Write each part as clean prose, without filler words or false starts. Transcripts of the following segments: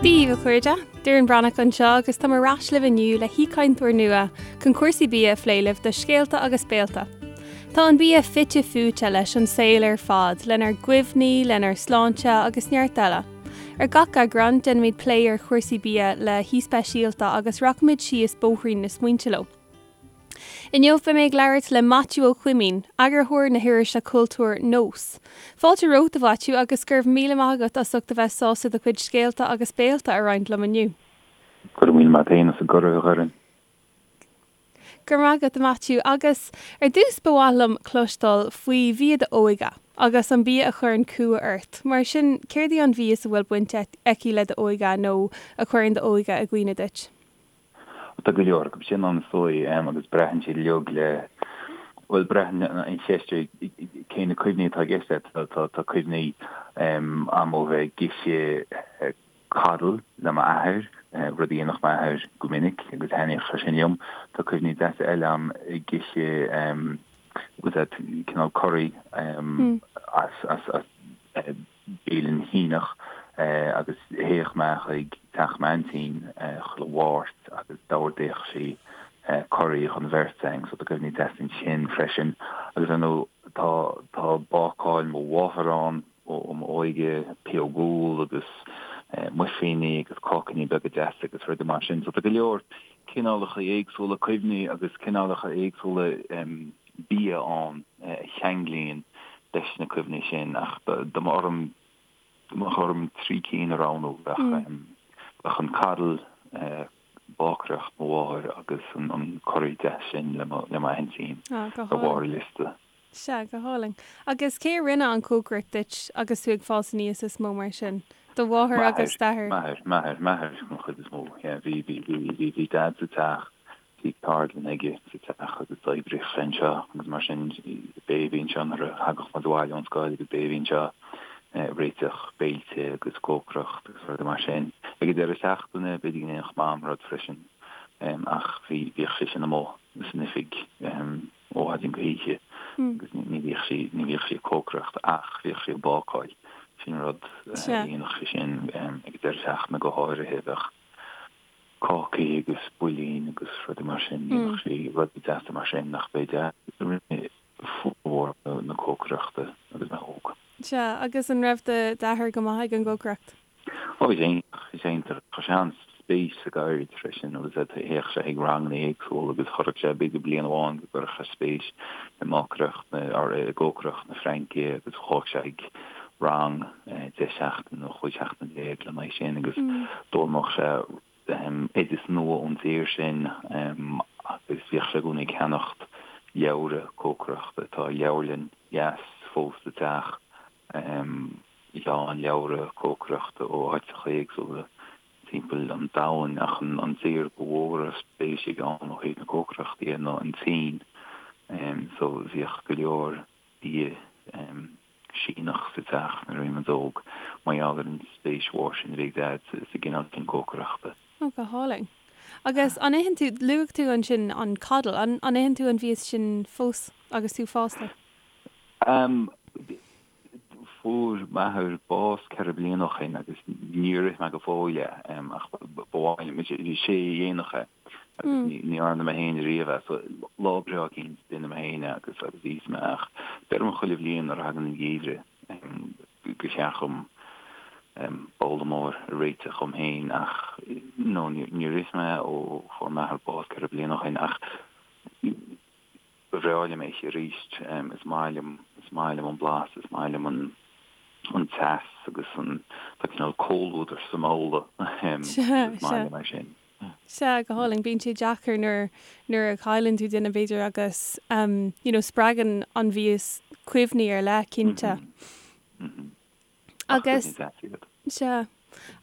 Dia daoibh a chairde, Doireann Breathnach anseo agus táim ar ais libh inniu le haoichainteoir nua chun cúrsaí bia a phlé libh do Scéalta agus Béalta. Tá an bia fite fuaite leis an saol ar fad, lenár gcuimhní, lenár sláinte agus neart eile. Ar gach eagrán, déanfaimid plé ar chúrsaí bia le haoi speisialta agus rachaimid síos bóithrín na smaointe leo. Inniu beidh mé ag labhairt le Maitiú Ó Coimín, eagarthóir na hirise cultúir Nós. Fáilte romhat, a Mhaitiú, agus go raibh míle maith agat as ucht a bheith sásta do chuid scéalta agus béalta a roinnt liom inniu. Go raibh míle maith agat féin as an gcuireadh, a Dhoireann. Go raibh maith agat, a Mhaitiú. Agus ar dtús ba mhaith liom cloisteáil faoi bhia d'óige agus an bia a chuireann cumha ort. Mar sin, céard í an mhias a bhfuil baint aici le d'óige nó a chuireann d'óige i gcuimhne duit? Tá go leor acu sin ann is dóigh agus braitheann siad uilig le, bhuel braitheann an cheist ar cé na cuimhní atá i gceist leat. Tá cuimhní a'm ó bheith ag ithe coddle le m'athair, rud a dhéanfadh m'athair go minic agus thaitníodh sé sin liom. Tá cuimhní deasa eile a'm ag ithe bhfuil a fhios agat cineál curry as as bialann Shíneach agus théadh mé chuig teach m'aintín chuile Mháirt agus d'ordaíodh sí curry don bheirt againn so tá cuimhní deasa ansin freisin. Agus ar ndóigh tá tá bácáil mo mháthar ann ó m'óige, pióg úll agus muifíní agus cácaíní beaga deasa agus rudaí mar sin. So tá go leor cineálacha éagsúla cuimhní agus cineálacha éagsúla bia ann a cheanglaíonn leis na cuimhní sin ach dá mba orm dá mbeadh orm 3 cinn a roghnú bheadh bheadh an coddle, bácaireacht mo mháthair agus an curry deas sin le mo le m'aintín ar bharr an liosta. Sea, go hálainn. Agus cé a rinne an chócaireacht duit agus tú ag fás aníos is mó mar sin? Do mháthair agus d'athair? M'athair, m'athair, m'athair den chuid is mó, yeah. Bhí, bhí, bhí, bhí Dad sa teach, bhí ceardlann aige sa teach agus d'oibríodh sé anseo agus mar sin b'é a bhí anseo nuair a thagadh muid abhaile ón scoil agus b'é a bhí anseo ag réiteach béilte agus cócaireacht agus rudaí mar sin. Ag an deireadh seachtaine b'fhéidir go ndéanfadh Mam rud freisin ach bhí, bhíodh sise amuigh san oifig. ó mhaidin go hoíche agus ní bhíodh sí, ní bhíodh sí ag cócaireacht ach bhíodh sí ag bácáil. Sin rud a dhéanadh sí sin ag an deireadh seachtaine go háirithe, bheadh cácaí agus builín agus rudaí mar sin, dhéanadh sí rudaí deasa mar sin ach b'é Dad a rinne formhór na cócaireachta agus mé óg. Sea, agus an raibh d'athair go maith ag an gcócaireacht? Ó, bhí sé iontach, bhí sé iontach. Chuir sé an-spéis sa gceird freisin agus théadh sé chuig ranganna éagsúla agus chuirfeadh sé, b'fhéidir bliain amháin go gcuirfeadh sé spéis i mbácaireacht na, or i gcócaireacht na Fraince agus chuaigh sé chuig rang 10 seachtain nó 15 seachtain lena aghaidh sin agus d'fhoghlaimeodh sé oideas nua ón dtír sin agus bhíodh sé i gcónaí ag ceannacht leabhra cócaireachta. Tá leabharlann dheas fós sa teach. lán leabhra cócaireachta ó áiteacha éagsúla timpeall an domhain ach an tír ba mhó a raibh spéis aige ann ó thaobh na cócaireachta dhe ná an tSín. So bhíodh go leor bia Síneach sa teach nuair a bhí muid óg mar gheall ar an spéis mhór sin a bhí ag Daid sa gcineál sin cócaireachta. Ó, go hálainn. Agus an itheann tú, luaigh tú ansin an coddle, an itheann tú an mhias sin fós agus tú fásta? Fuair m'athair bás 4 bliana ó shin agus níor ith mé go fóill é ach ba mhaith liom. Is é a dhéanadh é agus ní dhearna mé féin riamh é. So lá breá eicínt déanfaidh mé féin é agus agus íosfaidh mé ach deirim chuile bhliain nuair a thagann an geimhreadh gur cheart dhom babhla mór a réiteach dhom féin ach no níor ith mé ó fuair m'athair bás 4 bliana ó shin ach Ba bhreá liom é a ithe arís. Is maith liom, is maith liom an blas, is maith liom an an teas agus an, tá cineál comhluadar sa mbabhla agus is maith liom é sin. Sea, go hálainn. Bíonn sé deacair nuair, nuair a chailleann tú duine b'fhéidir agus you know spreagann an mhias cuimhní ar leith, cinnte. Agus, sea.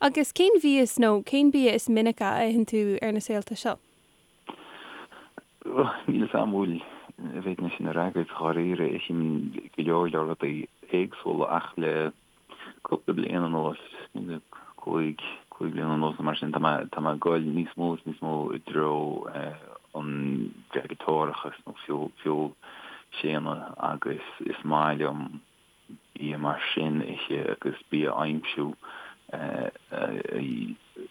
Agus cén mhias nó cén bia is minice a itheann tú ar na saolta seo? Níl a fhios agam an bhfuil, an bhféadfainn é sin a fhreagairt dháiríre. Ithim go leor leor rudaí éagsúla ach le cúpla bliain anuas, le cúig, cúig bliana anuas nó mar sin, tá mé, tá mé ag goil níos mó is níos mó i dtreo an veigeatórachas nó feoilséanadh agus is maith liom bia mar sin a ithe agus bia a aimsiú a.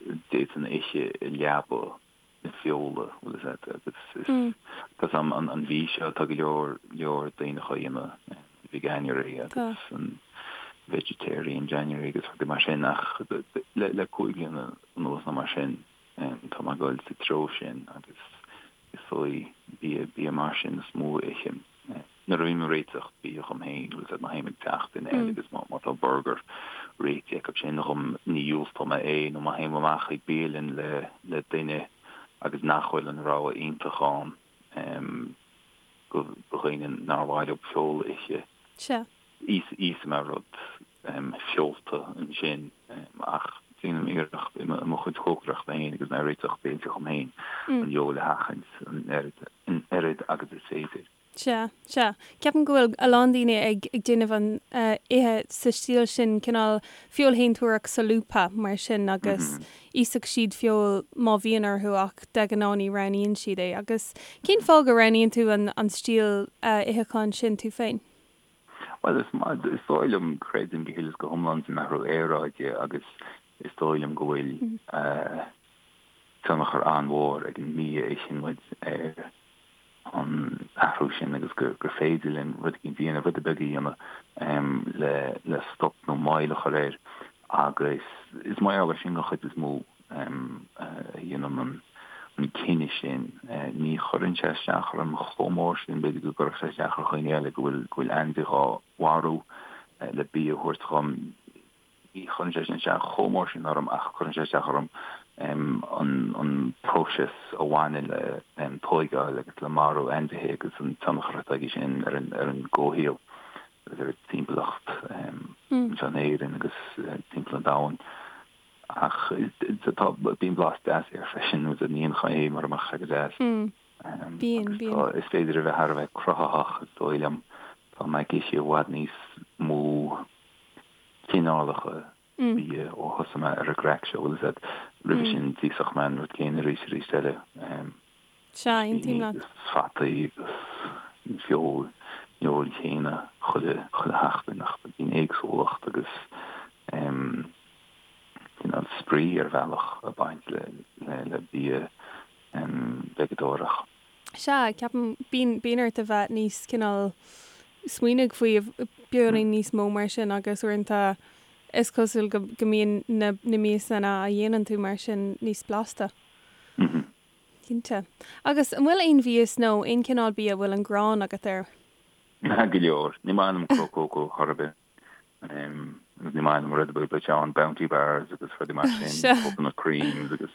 d'fhéadfainn a ithe i leaba na feola, bhfuil fhios agat, agus is tá 'fhios a'm an mhí seo tá go leor leor daoine á dhéanamh, Veganuary agus an Vegetarian January agus rudaí mar sin ach le le 5 bliana anuas nó mar sin tá mé ag dul sa treo sin agus is dóigh bia bia mar sin is mó a ithim. Nuair a bhím ag réiteach bia dhom féin, bhfuil 'fhios agat, má théim ag teach duine eile agus má tá burgar réitithe acu sin dhom, ní dhiúltóidh mé é, nó má théim amach ag bialann le le duine agus nach bhfuil an rogha iontach ann do dhaoine nár mhaith leo feoil a ithe, Sea. íosfaidh mé rud feolta ansin ach déanaim iarracht i mo chuid cócaireachta féin agus mé ag réiteach béilte dhom féin an fheoil a sheachaint an oiread agus is féidir. Sea, sea. Ceapaim go bhfuil a lán daoine ag ag déanamh an ithe sa stíl sin, cineál feoilshéantóireacht solúbtha mar sin agus íosfaidh siad feoil má bhíonn orthu ach de ghnáth ní roghnaíonn siad é. Agus cén fáth go roghnaíonn tú an an stíl itheacháin sin tú féin? Bhuel, is maith, is dóigh liom, creidim go huile is go hiomlán san athrú aeráide agus is dóigh liom go bhfuil tionchar an-mhór ag an mbia a itheann muid ar an athrú sin agus gur féidir linn rud éicint a dhéanamh, rud beag a dhéanamh le le stop nó moill a chur air agus is mar gheall air sin den chuid is mó a dhéanaim an an cinneadh sin. Ní chuireann sé isteach orm chomh mór sin, b'fhéidir go gcuirfeadh sé isteach ar dhaoine eile go bhfuil go bhfuil ainmhí dhá mharú le bia a thabhairt dhom. Ní chuireann sé sin isteach chomh mór sin orm ach cuireann sé isteach orm an próiseas a bhaineann le tóigeáil agus le marú ainmhithe agus an tionchar atá aige sin ar an gcomhshaol agus ar an timpeallacht anseo in Éirinn agus timpeall an domhain. Ach tá, bíonn blas deas air freisin, ní haon chaoi é mura mbeadh sé go deas. Bíonn, bíonn. Is féidir a bheith thar a bheith cruthaitheach is dóigh liom. Tá mé ag ithe i bhfad níos mó cineálacha bia ó thosaigh mé ar an gcraic seo, bhfuil fhios agat. Roimhe sin d'íosfadh mé an rud céanna arís arís eile. Sea, aontaím leat. Agus fataí agus an feoil, an fheoil chéanna chuile, chuile sheachtain ach bíonn éagsúlacht agus cineál spraoi ar bhealach ag baint le, le, le bia veigeadóireach. Sea, ceapaim, bíonn, bíonn ort a bheith níos cineál smaoinigh faoi beagáinín níos mó mar sin agus uaireanta is cosúil go, go mbíonn na, na miasanna a dhéanann tú mar sin níos blasta. Cinnte. Agus an bhfuil aon mhias nó aon chineál bia a bhfuil an ghráin agat air? Go leor. Ní maith liom cró cócó chor ar bith. Agus ní maith liom rud ar bith bliteán, Bounty bars agus rudaí mar sin, coconut creams agus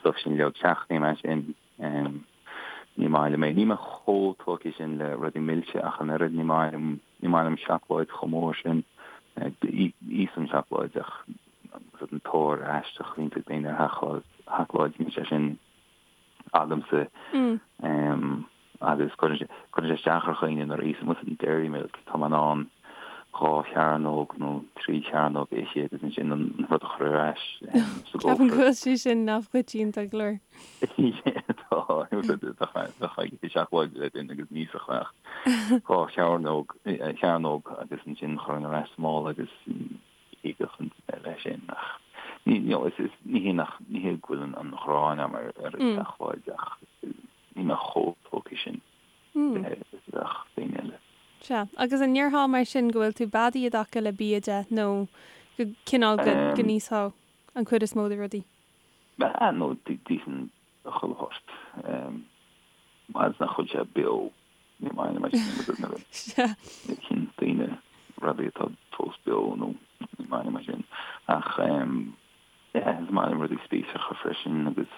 stuff sin uilig, seachnaím é sin. Ní maith liom é. Níl mé chomh tógtha sin le rudaí milse ach an oiread, ní maith liom, ní maith liom seacláid chomh mór sin. Íosaim seacláid ach an tóir aisteach a bhíonn ag daoine ar sheacláid, níl sé sin agamsa agus cuireann sé isteach ar dhaoine nuair a íosann muid an Dairy Milk, tá mé in ann 2 chearnóg nó 3 chearnóg a ithe agus ansin an rud a chur ar ais sa gcófra. Ceapaim go bhfuil sé sin neamhchoitianta go leor. Tá, bheadh ag ithe seacláide le duine agus ní íosfadh ach 2 chearnóg, chearnóg agus ansin chuirfinn ar ais sa mála agus thigeadh an duine leis sin ach ní you know is is ní hé nach ní hé go bhfuil an an ghráin agam ar ar an tseacláid ach níl mé chomh tógtha sin le is a bheadh daoine eile. Sea. Agus an ndéarfá mar sin go bhfuil tú beadaí i dtaca le bia de nó go cineál go go n-íosfá an chuid is mó de rudaí? Ah no d'íosfainn chuile shórt. Fhad is nach bhfuil sé beo, ní maith liom é sin nuair a itheann daoine rudaí atá fós beo nó ní maith liom é sin. Ach yeah, is maith liom rudaí spíosracha freisin agus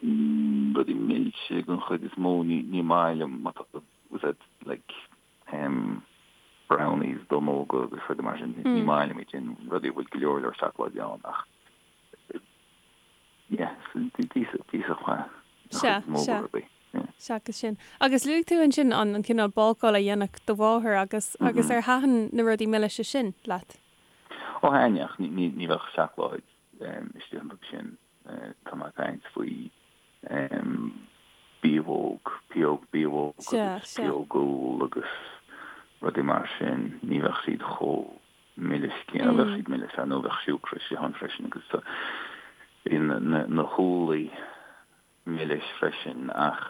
rudaí milse den chuid is mó, ní maith liom má tá was that like brownies, donnóga agus rudaí mar sin, ní maith liom iad sin, rudaí a bhfuil go leor leor seacláide ann ach Yeah, d'íosfadh mé an chuid is mó de rudaí. Seachas sin. Agus luaigh tú ansin an an cineál bácáil a dhéanfadh do mháthair agus agus ar thaitin na rudaí milise sin leat? Ó thaitin ach ní ní bheadh seacláid istigh iontu sin. Tá mé ag caint faoi biabhóg, pióg biabhóg agus pióg úll agus rudaí mar sin. Ní bheadh siad chomh milis céanna. Bheadh siad milis ar ndóigh, bheadh siúcra istigh ann freisin agus bíonn na húllaí milis freisin ach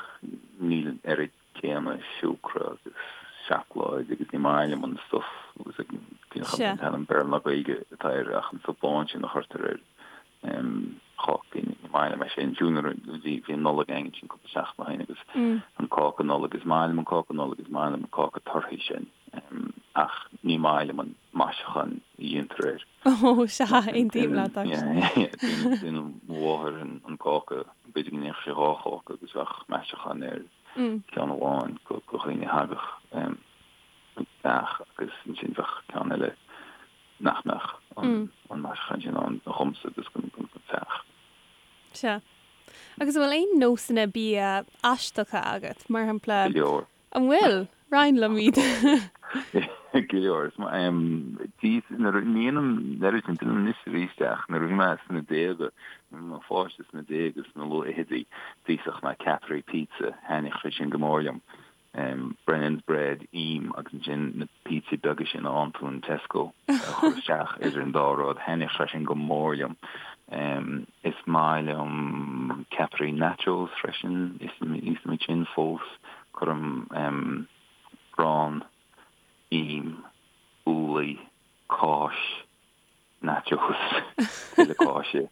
níl an oiread céanna siúcra agus seacláid agus ní maith liom an stuif agus an t-ainm Béarla ná Gaeilge atá air ach an stuif bán sin a chuirtear ar chácaí, ní maith liom é sin. Fiú nuair a bhí an Nollaig againn ansin cúpla seachtain ó shin agus an cáca Nollag, is maith liom an cáca Nollag, is maith liom an cáca torthaí sin ach ní maith liom an maisiúchán a dhéantar air. Ó, sea, aontaím leat, actually. Déanann mo mháthair an cáca, b'fhéidir go ndéanfadh sí dhá cháca agus bheadh maisiúchán ar cheann amháin do dhaoine a thagadh an teach agus ansin bheadh ceann eile nach mbeadh an maisiúchán sin ann dhomsa agus don teach. Sea. Agus an bhfuil aon nósanna bia aisteacha agat, mar shampla? Go leor. An bhfuil? Roinn liom iad. Go leor. Is maith nuair a ndéanaim an oiread sin, déanaim anois arís ach nuair a bhí mé sna déaga, nuair a bhí mé i mo pháiste sna déaga, sna luathfhichidí, d'íosfadh mé ceapairí pizza, thaitníodh sé sin go mór liom. Brennan's bread, im agus ansin na pizzaí beaga sin a fhaigheann tú in Tesco a chur isteach idir an dá rud, thaitníodh sé sin go mór liom. Is maith liom ceapairí nachos freisin, íosaim iad sin fós. Cuirim arán, im, úllaí, cáis, nachos, tuilleadh cáise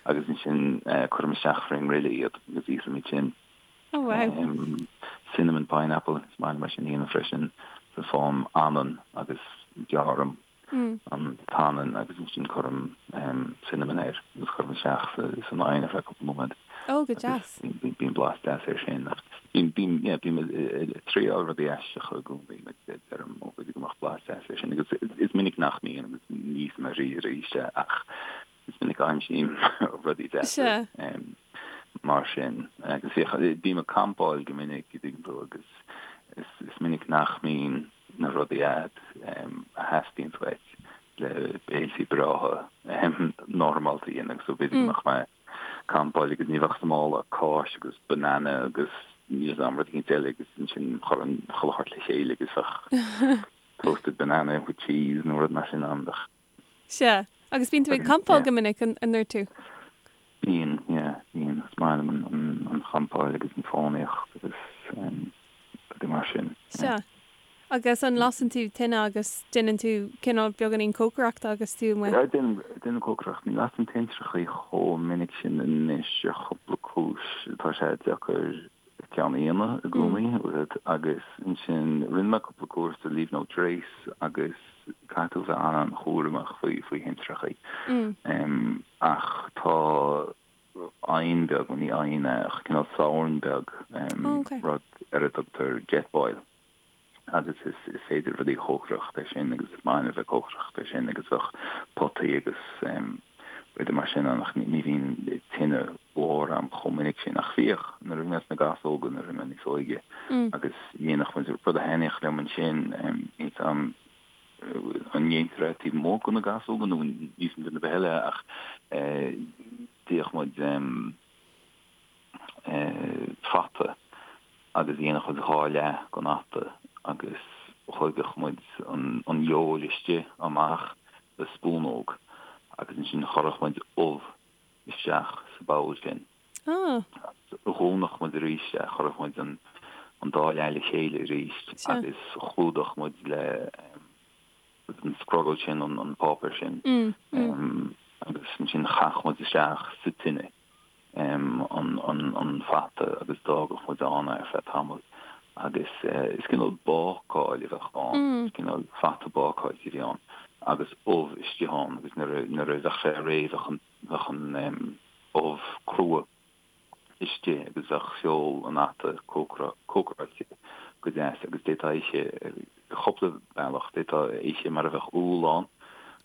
agus ansin cuirim isteach frín ngrille iad agus íosaim iad sin. Oh wow. Cinnamon pineapple, is maith liom é sin a dhéanamh freisin. So faighim anann agus gearraim an t-anann agus ansin cuirim cinnamon air agus cuirim isteach san oigheann ar feadh cúpla nóiméad. Ó, go deas. Bíonn blas deas air sin. Ach bím, yeah, bím ag triáil rudaí aisteacha i gcónaí, like deirim, ó b'fhéidir go mbeadh blas deas air sin agus is minic nach mbíonn agus ní íosaim arís arís é ach is minic a aimsím rudaí deasa mar sin. Agus bím ag campáil go minic, an dtuigeann tú, agus is minic nach mbíonn na rudaí a'd a theastaíonn uait le béiltí breátha normálta a dhéanamh so b'fhéidir go mbeadh mé ag campáil agus ní bheadh sa mála ach cáis agus banana agus níl 'fhios a'm rud éicint eile agus ansin chuirfinn chuile shórt le chéile agus bheadh toasted banana with cheese nó rud mar sin ann. Sea. Agus bíonn tú ag campáil go minic, an ndúirt tú? Bíonn, yeah, bíonn. Is maith liom an champáil agus an fánaíocht agus rudaí mar sin. Sea. Agus an lasann tú tine agus déanann tú cineál beagáinín cócaireachta agus tú amuigh? Yeah, déanaim, déanaim cócaireacht. Ní lasaim tintreachaí chomh minic sin anois ar chúpla cúis. Tá sé deacair ceann a dhéanamh i gcónaí agus ansin rinne mé cúpla cúrsa Leave No Trace agus caithfidh tú bheith an-an-chúramach faoi faoi thintreachaí. Ach tá oigheann beag, bhuel ní oigheann é ach cineál sorn beag, rud ar a dtugtar Jetboil. agus is féidir rudaí a chócaireacht air sin agus is maith liom a bheith ag cócaireacht air sin agus bheadh potaí agus rudaí mar sin ann ach ní bhíonn tine mhór a'm chomh minic sin ach bhíodh nuair a bhí mé sna gasóga nuair a bhí mé níos óige agus dhéanadh muid rud a thaitníodh liom ansin níl 'fhios a'm an ndéantar é taobh amuigh de na gasóga nó níl 'fhios a'm duine ar bith eile ach d'ítheadh muid fata agus dhéanfadh muid dhá leath den fhata agus thóigeadh muid an fheoil istigh amach le spúnóg agus ansin chuirfeadh muid ubh isteach sa bpoll sin. Dhúnfadh muid arís é, chuirfeadh muid an dá leath le chéile arís agus chlúdódh muid le an scrogall sin, an páipéar sin agus ansin chaithfeadh muid isteach sa tine an fata agus d'fhágfadh muid ann é ar feadh tamaill agus is cineál bácáil a bheadh ann, is cineál fata bácáilte a bhí ann agus ubh istigh ann agus nuair a bheadh sé réidh bheadh an ubh crua. istigh agus bheadh feoil an fhata cócaráilte go deas agus d'fhéadfá é a ithe ar chúpla bealach. D'fhéadfá é a ithe mar a bheadh úll ann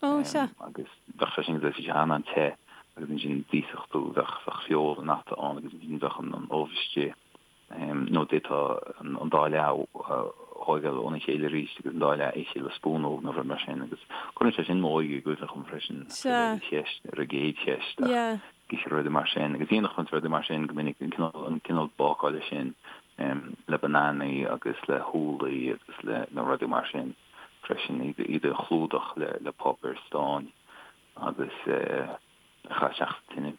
agus bheadh sé sin go deas, bhí sé an-an-te agus ansin d'íosfadh tú, bheadh feoil an fhata ann agus ansin bheadh an ubh istigh. Nó d'fhéadfá an dá leath a thóigeáil óna chéile arís agus an dá leath a ithe le spúnóg nó rud mar sin agus cuireann sé sin m'óige i gcuimhne dhom freisin ar an cheist, ar an gcéad cheist ach ithe rudaí mar sin agus dhéanfadh muid rudaí mar sin go minic, an cineál, an cineál bácála sin le bananaí agus le húllaí agus le na rudaí mar sin. freisin, iad a chlúdach le páipéar stáin agus a chur isteach sa tine.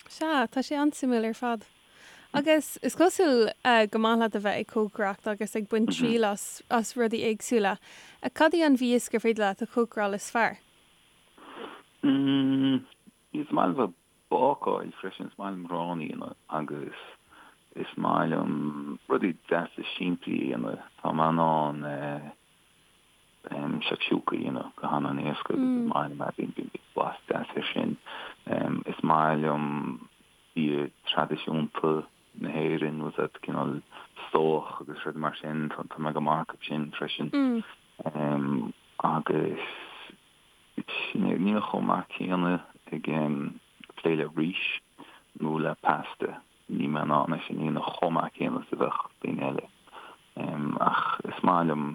Sea, tá sé an-suimiúil ar fad. Agus is cosúil go maith leat a bheith ag cócaireacht agus ag baint triail as as rudaí éagsúla. Cad í an mhias gur féidir leat a chócaráil is fearr? Is maith liom bheith ag bácáil freisin, is maith liom arán a dhéanamh agus is maith liom rudaí deasa simplí a dhéanamh. Tá mé in ann shakshuka a dhéanamh go han-an-éasca agus is maith liom é, bíonn blas deas air sin. Is maith liom bia traidisiúnta na hÉireann, bhfuil a fhios agat, cineál stobhach agus rudaí mar sin, tá mé go maith acu sin freisin. Agus níl mé chomh maith céanna ag plé le rís nó le pasta, níl mé in ann é sin a dhéanamh chomh maith céanna is a bheadh daoine eile. Ach is maith liom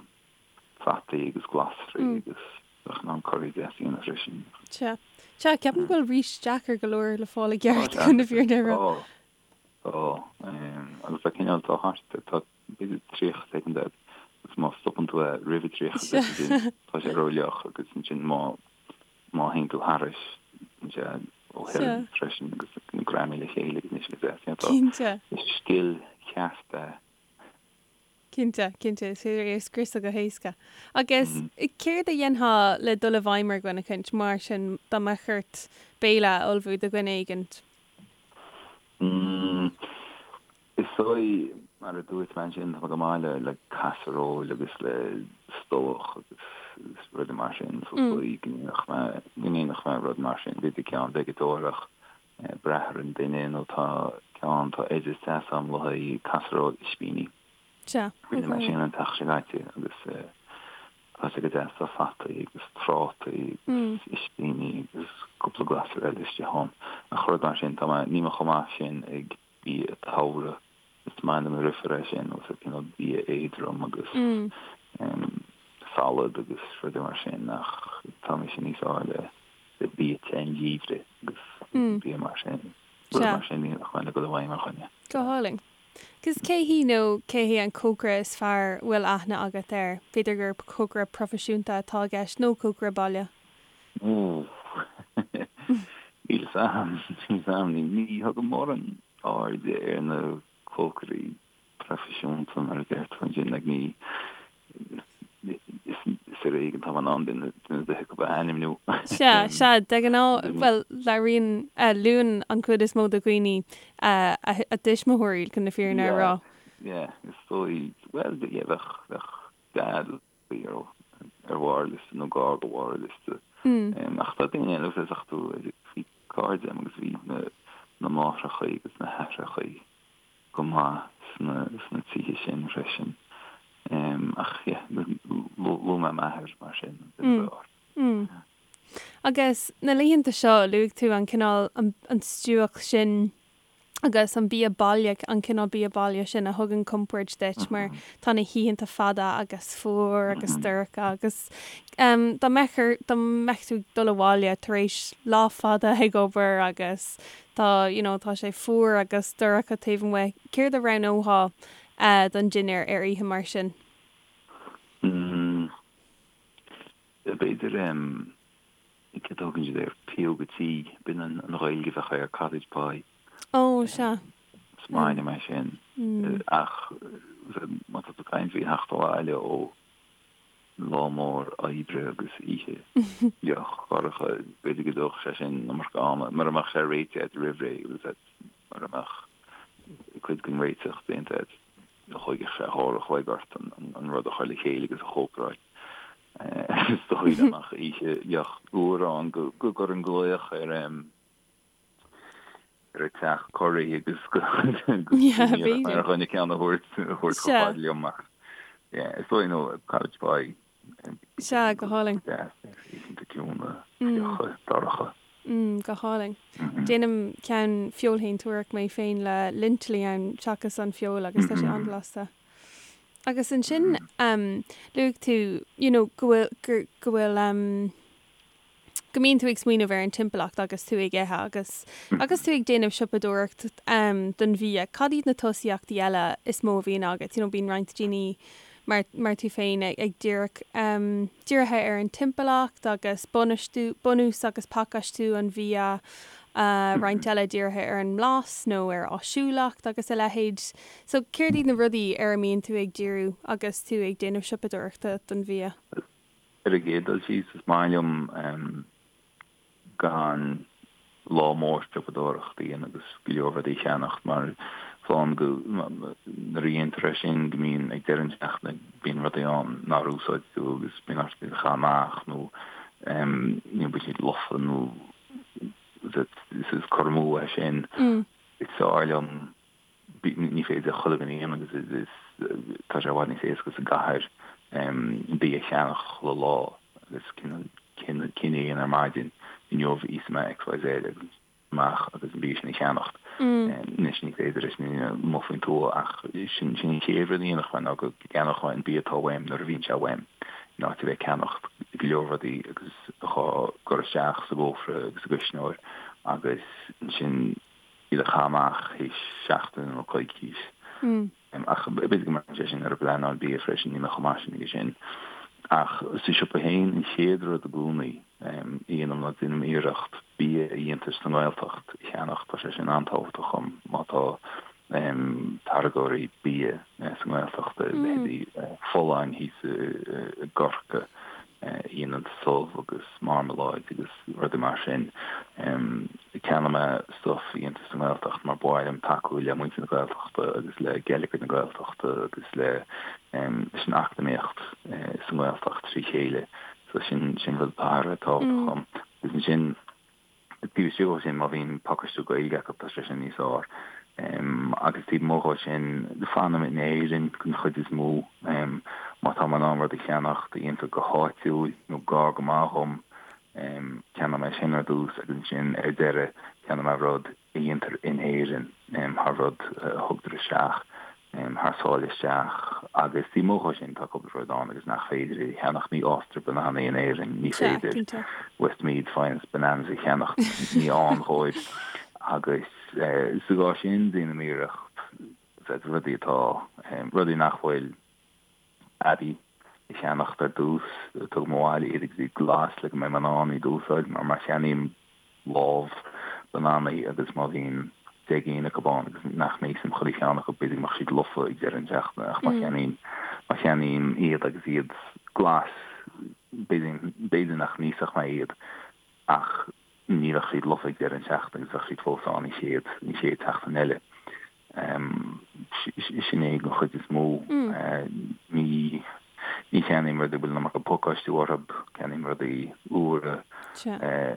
fataí agus glasraí agus bheadh in ann curaí deas a dhéanamh freisin. Sea. Sea, ceapaim go bhfuil rís deacair go leor le fáil i gceart chun na fírinne a rá. Tá, tá. Agus tá cineál, tá thart, tá b'fhéidir 30 soicind agat agus má stopann tú é roimh an 30 soicind tá sé rófhliuch agus ansin má má théann tú thairis bíonn sé róthirim freisin agus greamaithe le chéile agus níl sé go deas. Cinnte. Is scil cheart é. Cinnte, cinnte, is féidir é a scriosadh go héasca. Agus céard a dhéanfá le dul i bhfeidhm ar dhuine éicint, mar sin, dá mbeadh ort béile a ullmhú do dhuine éigint? Is dóigh, mar a dúirt mé ansin, tá mé go maith le le casaróil agus le stobhach agus rudaí mar sin, so is dóigh go ndéanfadh mé, go ndéanfadh mé rud mar sin, b'fhéidir ceann veigeadórach brath ar an duine nó tá ceann, tá oideas deas agam le haghaidh casaróil ispíní. Sea. Rinne mé sin an tseachtain seo caite agus tá sé go deas, tá fataí agus trátaí agus ispíní agus cúpla glasra eile istigh ann. Ach rud mar sin, tá mé, níl mé chomh maith sin ag bia togha. Is maith liom rifear é sin, agus cineál bia éadrom agus salad agus rudaí mar sin ach tá mise níos fearr le le bia te an gheimhridh agus bia mar sin. Rud mar sin níl ach le dul i bhfeidhm ar dhuine. Go hálainn. Agus cé hí nó cé hé an cócaire is fearr a bhfuil aithne agat air? B'fhéidir gur cócaire proifisiúnta atá i gceist nó cócaire baile? Níl 'fhios a'm, níl 'fhios a'm. Ní thugaim mórán airde ar na cócairí proifisiúnta mar a deir tú ansin, like ní, is ar éigean atá mé in ann duine ar bith acu a ainmniú. Sea, sea, de ghnáth, bhuel, labhraíonn, luann an chuid is mó de dhaoine a dtuismitheoirí chun na fírinne a rá. Yeah, yeah, is dóigh, bhuel, yeah, bheadh, bheadh Dad ar bharr liosta nó gar do bharr liosta. Ach tá daoine eile bhfuil a fhios agat bhí cairde agam agus bhí na máithreacha agus na haithreacha go maith sna tithe sin freisin. Ach yeah, luaigh mé m'athair mar sin, an duine ab fhearr. Agus na laethanta seo, luaigh tú an cineál, an stuac sin agus an bia baile, an cineál bia baile sin a thugann compord duit mar tá na hoícheanta fada agus fuar agus dorcha agus dá mbeadh dá mbeadh tú ag dul abhaile tar éis lá fada ag obair agus tá you know tá sé fuar agus dorcha taobh amuigh, céard a roghnófá don dinnéar ar oíche mar sin? B'fhéidir Céard a thugann siad air? Pióga tí, b'in an Ghaeilge a bheadh air, cottage pie. Ó, sea. Is maith liom é sin. Ach má tá tú ag caint faoi theacht abhaile ó lá mór oibre agus oíche fhliuch dhorcha, b'fhéidir go dtógfadh sé sin an iomarca ama, mura mbeadh sé réitithe agat roimh ré, mura mbeadh cuid den réiteach déanta agat, thógfadh sé uair a chloig ort an rud a chur le chéile agus a chócaráil. Is dóigh liom ach oíche fhliuch fhuar ann go gcuirfinn glaoch ar ar an teach curaí agus go ar dhuine ceann a thabhairt a thabhairt chomh fada liom ach is dóigh nó cottage pie. Sea, go hálainn. Oícheanta ciúine, fliucha, dorcha. Go hálainn. Déanaim ceann feoilshéantúireach mé féin le lintilí ann seachas an feoil agus tá sé an-bhlasta. Agus ansin luaigh tú you know go bhfuil gur go bhfuil go mbíonn tú ag smaoineamh ar an timpeallacht agus tú ag ithe agus agus tú ag déanamh siopadóireacht don bhia. Cad iad na tosaíochtaí eile is mó a bhíonn agat? You know bíonn roinnt daoine. mar mar tú féin ag díreach dírithe ar an timpeallacht agus bainistiú, bunús agus pacáistiú an bhia, roinnt eile dírithe ar an mblas nó ar áisiúlacht agus a leithéid. So céard iad na rudaí ar a mbíonn tú ag díriú agus tú ag déanamh siopadóireachta don bhia? Ar an gcéad dul síos, is maith liom gan lá mór siopadóireachta a dhéanamh agus go leor rudaí a cheannacht mar fágann go nuair a dhéantar é sin go mbíonn ag deireadh na seachtaine bíonn rudaí ann nár úsáid tú agus bíonn ort iad a chaitheamh amach nó you know bíonn siad lofa nó is cur amú é sin. Is fearr liom Ní féidir chuile dhuine a dhéanamh agus is tá sé i bhfad níos éasca sa gcathair bia a cheannach chuile lá agus cinneadh a dhéanamh ar maidin, inniu íosfaidh mé XYZ agus amach agus an bia sin a cheannacht. Anois ní féidir leis na daoine amuigh faoin tuath ach sin an chéad rud a dhéanfadh mé ná go gceannódh mé an bia atá uaim nuair a bhíonn sé uaim in áit a bheith ag ceannacht go leor rudaí agus á gcur isteach sa gcófra agus sa gcuisneoir agus ansin iad a chaitheamh amach théis seachtaine nó coicís. Ach b'fhéidir go mbraitheann sé sin ar an bpleanáil bia freisin, níl mé chomh maith sin aige sin. Ach sa siopa féin, an chéad rud i gcónaí a dhéanaim ná déanaim iarracht bia a dhéantar sa nGaeltacht a cheannach, tá sé sin an-tábhachtach dhom má tá táirgeoirí bia sa nGaeltacht, leithéidí Folláin thíos i gCorcaigh, a dhéanann subh agus marmaláid agus rudaí mar sin. Ceannaím mé stuif a dhéantar sa nGaeltacht mar ba mhaith liom tacú le muintir na Gaeltachta agus le geilleagar na Gaeltachta agus le leis an eacnamaíocht sa nGaeltacht trí chéile. So sin sin rud atá thar a bheith tábhachtach dom. Agus ansin Taobh istigh dhó sin, má bhíonn pacáistiú Gaeilge acu, tá sé sin níos fearr. Agus taobh amuigh dhó sin, fanaim in Éirinn den chuid is mó. Má tá mé in ann rud a cheannacht a dhéantar go háitiúil nó gar go maith dhom, ceannóidh mé sin ar dtús agus ansin ar deireadh ceannóidh mé rud a dhéantar in Éirinn thar rud a thugtar isteach. thar sáile isteach agus taobh amuigh dhó sin tá cúpla rud ann agus nach féidir a cheannach, ní fhástar bananaí in Éirinn, ní féidir Westmeath Finest Bananas a cheannacht, ní ann dhóibh agus sa gcás sin déanaim iarracht rudaí atá, rudaí nach bhfuil aibí a cheannacht ar dtús, tugaim abhaile iad agus iad glas le go mbeidh mé in ann iad a úsáid mar má cheannaím lámh bananaí agus má bhíonn 10 gcinn acu ann agus nach n-íosfainn chuile cheann acu, b'fhéidir go mbeadh siad lofa ag deireadh na seachtaine ach má cheannaím, má cheannaím iad agus iad glas, b'fhéidir, b'fhéidir nach n-íosfadh mé iad ach ní bheadh siad lofa ag deireadh na seachtaine agus bheadh siad fós ann an chéad, an chéad tseachtain eile. Sin é den chuid is mó. Ní ní cheannaím rudaí a bhfuil an iomarca pacáistiú orthu, ceannaím rudaí úra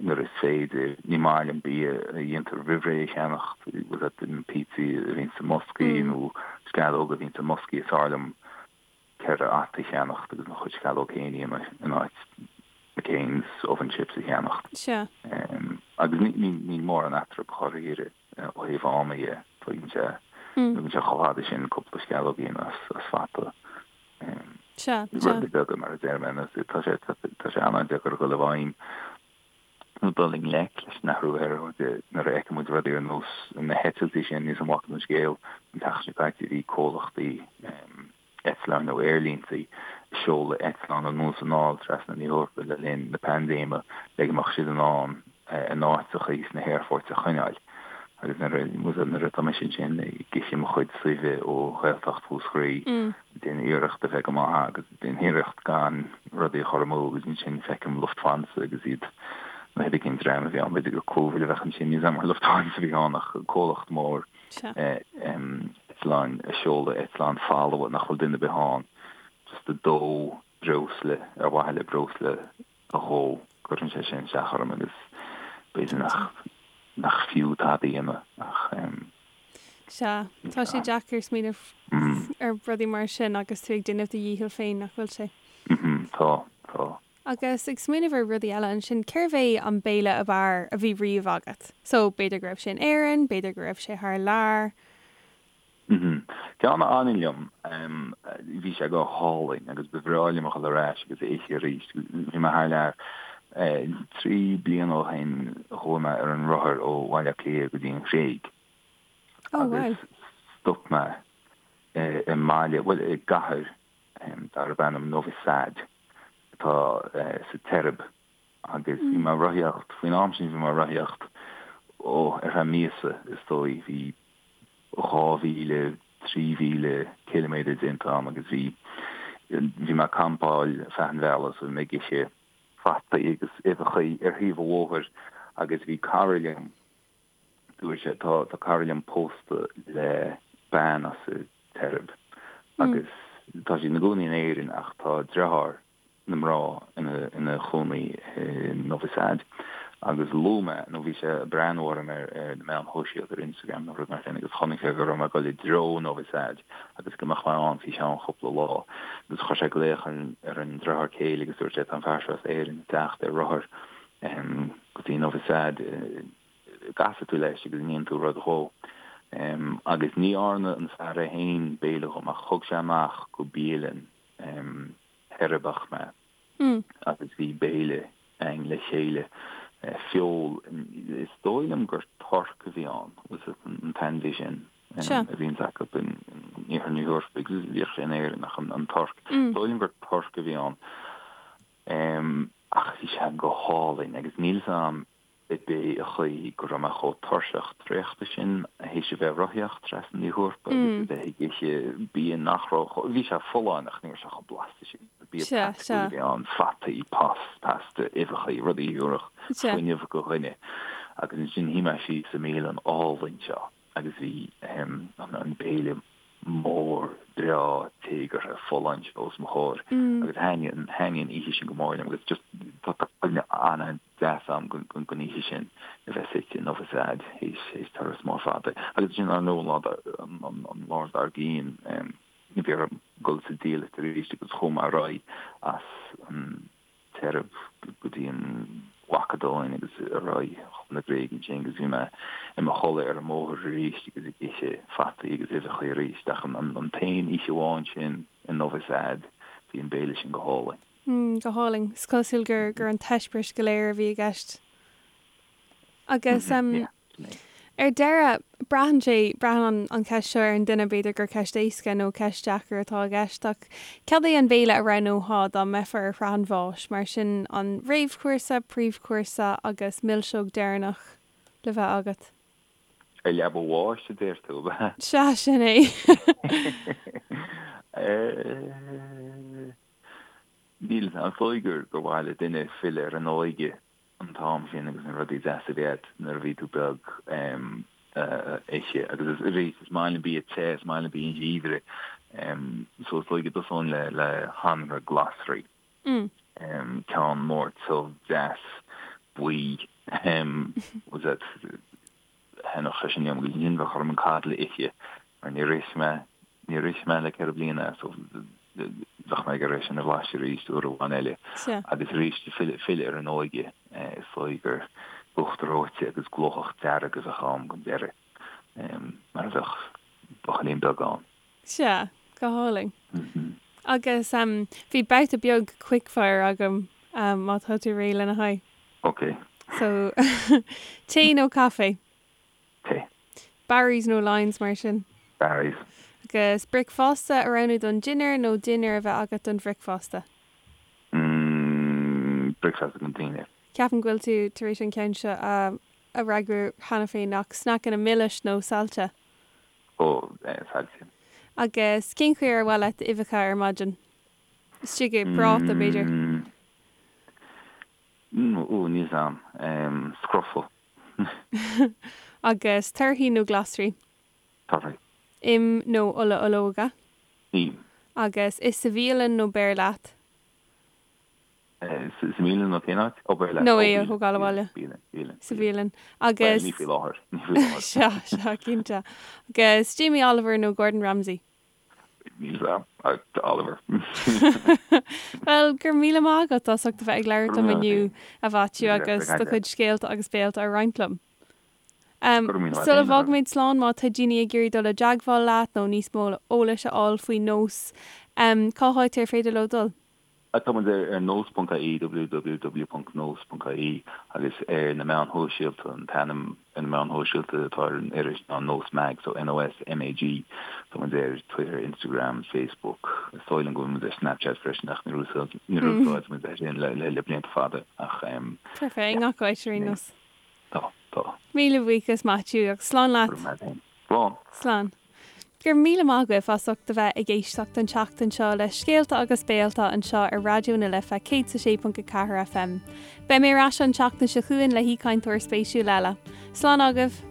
nuair is féidir. Ní maith liom bia a dhéantar roimh ré a cheannacht, bhfuil a fhios agat, na pizzaí a bhíonn sa mboscaí nó sceallóga a bhíonn sa mboscaí, is fearr liom 4 fhata a cheannacht agus mo chuid sceallóg féin a dhéanamh in áit McCain's oven chips a cheannacht. Sea. Agus níl mórán eatarthu dháiríre ó thaobh ama dhe. Tógann sé, tógann sé chomh fada sin cúpla sceallóg a dhéanamh as fata. Sea, sea. Rudaí beaga mar a deir mé, tá sé, tá sé an-deacair a dhul i bhfeidhm nó dul i ngleic leis an athrú aeráide nuair a fheiceann muid rudaí ar nós na heitiltí sin níl a fhios agam an bhfaca tú an scéal an tseachtain seo caite bhí comhlachtaí eitleáin nó aerlínte ag seoladh eitleán anonn is anall trasna na hEorpa le linn na paindéime le go mbeadh siad in ann a n-áiteachaí sna haerfoirt a choinneáil. Agus nuair a nuair atá mise ansin ag ithe mo chuid suibhe ó Ghaeltacht Mhúscraí, déanaim iarracht a bheith go maith agus déanaim iarracht gan rudaí a chur amú agus ansin feicim Lufthansa agus iad nó hé cén dream a bhí ann, b'fhéidir gur Cúbhail a bheadh ansin, níl a fhios agam ar Lufthansa a bhí ann ach comhlacht mór eitleáin ag seoladh eitleáin folamh nach bhfuil duine ar bith ann just ag dó breosla ar mhaithe le breosla a dhó. Cuireann sé sin isteach orm agus b'fhéidir nach nach fiú tada a dhéanamh ach Sea, tá sé deacair smaoineamh ar rudaí mar sin agus tú ag déanamh do dhícheall féin, nach bhfuil sé? Tá, tá. Agus ag smaoineamh ar rudaí eile ansin, cérbh é an béile ab fhearr a bhí riamh agat? So, b'fhéidir go raibh sé in Éirinn, b'fhéidir go raibh sé thar lear. Ceann a fhanann liom, bhí sé go hálainn agus ba bhreá liom a dhul ar ais agus é a ithe arís. Bhí mé thar lear 3 bliana ó shin, chuaigh mé ar an rothar ó Bhaile Átha Cliath go dtí an Ghréig agus stop mé i mbaile, bhuel i gcathair. darb ainm Novi Sad atá sa tSeirbia agus bhí mé ag rothaíocht, faoin am sin bhí mé ag rothaíocht, ó, ar feadh míosa is dóigh, bhí 2,000, 3,000 ciliméadar déanta agam agus bhí, bhí mé ag campáil feadh an bhealaigh so bhí mé ag ithe fataí agus uibheachaí ar thaobh an bhóthair agus bhí cara liom, dúirt sé, tá, tá cara liom pósta le bean as an tSeirbia agus tá siad ina gcónaí in Éirinn ach tá deartháir na mná ina chónaí i Novi Sad agus luaigh mé, nó bhí sé ag breathnú orm ar na meáin shóisialta, ar Instagram nó rud mar sin agus chonaic sé go raibh mé ag dul i dtreo Novi Sad agus go mbeadh mé ann faoi cheann cúpla lá agus chuir sé glaoch ar an deartháir céile agus dúirt sé tá an fear seo as Éirinn ag teacht ar rothar go dtí Novi Sad gcasfaidh tú leis agus an ndéanfaidh tú rud dhó. Agus ní dhearna an fear é féin béile dhom ach thug sé amach go bialann Sheirbiach mé agus bhí béile againn le chéile, feoil, is dóigh liom gur torc a bhí ann, an t-ainmhí sin a bhíonns acu in iarthar na hEorpa agus bhíodh sé in Éirinn ach an torc, is dóigh liom gur torc a bhí ann. Ach bhí sé go hálainn agus níl 'fhios a'm ab é an chaoi go raibh mé chomh tuirseach traochta sin théis a bheith ag rothaíocht trasna na hEorpa agus a bheith ag ithe bia nach raibh chomh, bhí sé folláin ach ní raibh sé chomh blasta sin. Bia praiticiúil a bhí ann, fataí, pasta, uibheachaí, rudaí a thabharfadh fuinneamh do dhuine. Agus ansin shuigh mé síos sa mbialann álainn seo agus bhí an béile mór breá téagartha folláin seo os mo chomhair agus thaitnigh an oíche sin go mór liom agus just tá cuimhne an deas agam den oíche sin a bheith suite i Novi Sad théis turas mór fada. Agus ansin ar ndóigh an lá dár gcionn bhí orm dul sa diallait arís agus chuaigh mé ar aghaidh as an tSeirbia go dtí an Mhacadóin agus ar aghaidh chun na Gréige ansin agus bhí mé i mo chodladh ar an mbóthar arís agus ag ithe fataí agus uibheacha arís. Ach an t-aon oíche amháin sin i Novi Sad bhí an béile sin go hálainn. Mm, go hálainn. Is cosúil gur gur an t-eispéireas go léir a bhí i gceist. Agus em Yeah, sin é. ar deireadh, braitheann sé, braitheann an an cheist seo ar an duine, b'fhéidir gur ceist éasca nó ceist deacair atá i gceist, ach cad é an béile a roghnófá dá mbeifeá ar shraith an bháis? Mar sin, an réamhchúrsa, príomhchúrsa agus milseog deireanach le bheith agat? Ar leaba bháis, a deir tú, ab ea? Sea, sin é. Eh. Níl, is dóigh gur gur mhaith le duine filleadh ar an óige an t-am sin agus na rudaí deasa a bhí agat nuair a bhí tú beag a ithe. Agus arís, is maith liom bia te, is maith liom bia an gheimhridh. So is dóigh go dtosóinn le le hanraith glasraí. Ceann mór tiubh deas buí. Was that Thaitneodh sé sin liom agus ansin bheadh orm an coddle a ithe mar níor ith mé, níor ith mé le 4 bliana so bheadh mé ag iarraidh é sin a bhlaiseadh arís uair amháin eile. Agus arís filleadh, filleadh ar an óige is dóigh gur uachtar reoite agus glóthach dearg a bheadh ann don deireadh mar a bheadh buachaillín beag ann. Sea, go hálainn. Agus bhí babhta beag quickfire agam má tá tú réidh lena haghaidh. Ok. So, tae nó caife? Tae. Barry's nó Lyons mar sin? Barry's. Agus bricfeasta a roghnú don dinnéar nó dinnéar a bheith agat don bhricfeasta? Mm, bricfeasta don dinnéar. Ceapaim go bhfuil tú tar éis an ceann seo a fhreagrú cheana féin ach sneaiceanna milis nó saillte? Ó, saillte. Agus cén chaoi ar mhaith leat uibheacha ar maidin? Istigh i bpráta, b'fhéidir? Mm, ó, níl 's a'm. Scrofa. Agus torthaí nó glasraí? Torthaí. Im nó ola olóige? Im. Agus ith sa bhialann nó beir leat? Sa mbialann nó cén áit? Ó, beir leat. Nó é a thógáil abhaile. Bialann, bialann. Sa bhialann. Agus. Bhuel, ní faoi láthair. Ní faoi láthair. Sea, sea, cinnte. Agus Jamie Oliver nó Gordon Ramsay? Níl 's a'm. Oliver. Bhuel, go raibh míle maith agat as ucht a bheith ag labhairt liom inniu, a Mhaitiú, agus do chuid scéalta agus béalta a roinnt liom. Sula bhfágaimid slán, má tá daoine ag iarraidh dul i dteagmháil leat nó níos mó eolais a fháil faoi NÓS, cá háit ar féidir leo dul? Tá muid ar nós.ie, www.nós.ie, agus ar na meáin shóisialta, an t-ainm ar na meáin shóisialta atá ar an iris ná Nós Mag, so NOSMAG. Tá muid ar Twitter, Instagram, Facebook, is dóigh liom go bhfuil muid ar Snapchat freisin ach níor úsáid muid é sin le blianta fada ach. Tá fé i ngach áit ar aon nós. Tá, tá. Míle buíochas Maitiú agus slán leat. Go raibh maith agat. Slán. Slán. Go raibh míle maith agaibh as ucht a bheith ag éisteacht an tseachtain seo le Scéalta agus Béalta anseo ar Raidió na Life 106.4 FM. Beidh mé ar ais an tseachtain seo chugainn le haoichainteoir spéisiúil eile. Slán agaibh!